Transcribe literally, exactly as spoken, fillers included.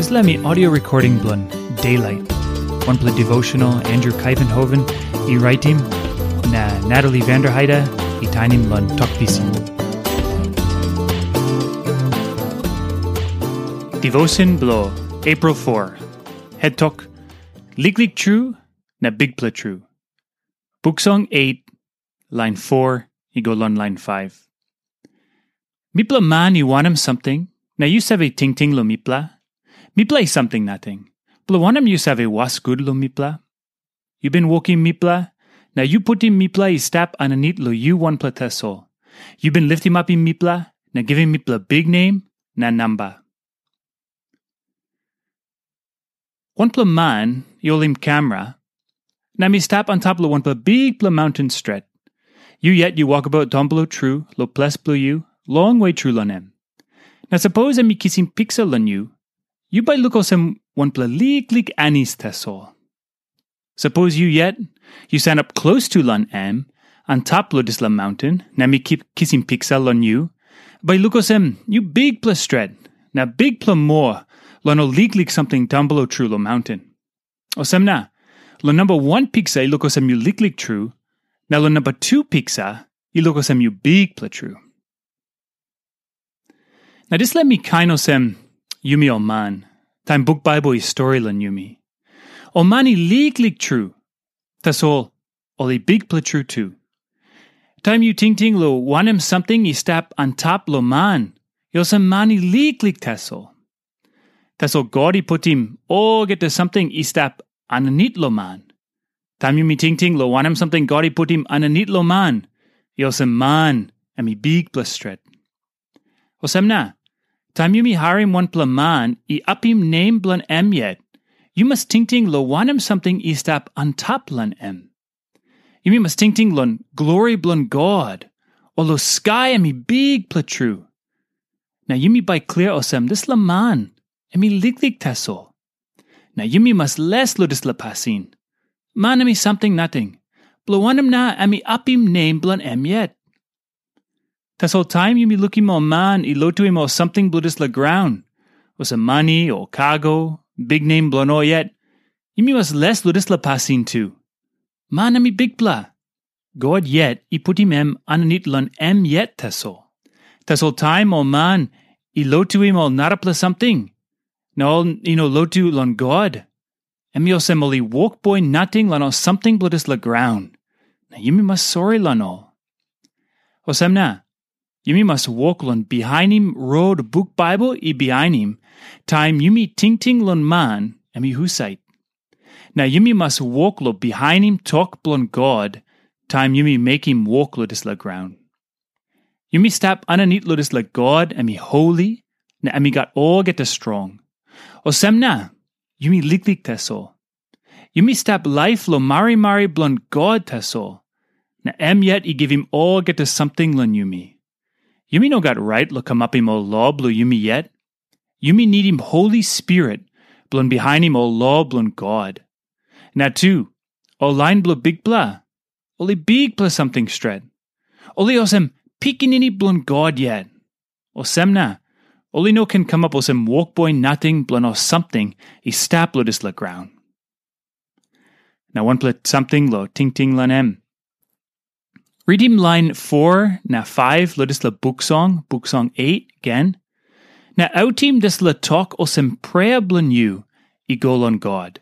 Dispela mi audio recording bilong Daylight, wanpela devotional Andrew Kaivenhoven i raitim, na Natalie Vanderheide i tainim long Tok Pisin. Devotion bilong April four. Het tok, liklik tru na bikpela tru. Buk Song eight, lain four i go long lain five. Mipela man i wanem samting, na yu save tingting long mipela? Mipela i samting nating. Bilong wanem yu save was gut long mipela? Yu bin wokim mipela, na yu putim mipela i stap aninit long yu wanpela tasol. Yu bin litimapim mipela, na givim mipela biknem na namba. Wanpela man i holim kamera, na mi stap antap long wanpela bikpela maunten stret. Yu yet yu wokabaut taunblo tru long ples bilong yu, longwe tru long em. Na sapos em i kisim piksa long yu, yu bai luk olsem wanpela liklik anis tasol. Sapos yu yet yu sanap klostu long em, antap long dispela maunten, na mi kip kisim piksa long yu, bai luk olsem yu bikpela stret, na bikpela moa long ol liklik samting taunblo tru long maunten. Olsem na, long namba wan piksa i luk olsem yu liklik tru, na long namba tu piksa i luk olsem yu bikpela tru. Na dispela mi kain olsem yumi ol man, taim buk Baibel i stori long yumi. Ol man i liklik tru, tasol ol i bikpela tru tu. Taim yu tingting long wanem samting i stap antap long man, i olsem man i liklik tasol. Tasol God i putim olgeta samting i stap aninit long man. Taim yumi tingting long wanem samting God i putim aninit long man, i olsem man em i bikpela stret. Olsem na, taim yumi harim wanpela man i apim nem bilong em yet, yu mas tingting long wanem samting i stap antap long em. Yumi mas tingting long glori bilong God, o long skai em i bikpela tru. Na yumi bai klia olsem dispela man em i liklik tasol. Na yumi mas les long dispela pasin. Man em i samting nating, bilong wanem na em i apim nem bilong em yet? Tasol taim yumi lukim ol man i lotuim ol samting bilong dispela graun, olsem mani o kago, biknem bilong ol yet, yumi mas les long dispela pasin tu. Man em i bikpela. God yet i putim em aninit long em yet tasol. Tasol taim ol man i lotuim ol narapela samting, na ol i no lotu long God, em i olsem ol i wokboi nating long ol samting bilong dispela graun, na yumi mas sori long ol. Olsem na, yumi mas wok long bihainim rot buk Baibel i bihainim, taim yumi tingting long man em i husat. Na yumi mas wok long bihainim tok bilong God, taim yumi mekim wok long dispela graun. Yumi stap aninit long dispela God em i holi, na em i gat olgeta strong. Olsem na, yumi liklik tasol. Yumi stap laip long marimari bilong God tasol, na em yet i givim olgeta samting long yumi. Yumi no gat rait long kamapim ol lo bilong yumi yet. Yumi nidim Holi Spirit bilong bihainim ol lo bilong God. Na tu, ol lain bilong Bikpela, ol i bikpela samting stret. Ol i olsem pikinini bilong God yet. Olsem na, ol i no ken kamap olsem wokboi nating bilong ol samting i stap long dispela graun. Na wanpela samting long tingting long em. Ritim lain foa na faiv long dispela buk song, buk song et gen, na autim dispela tok olsem prea bilong yu i go long God.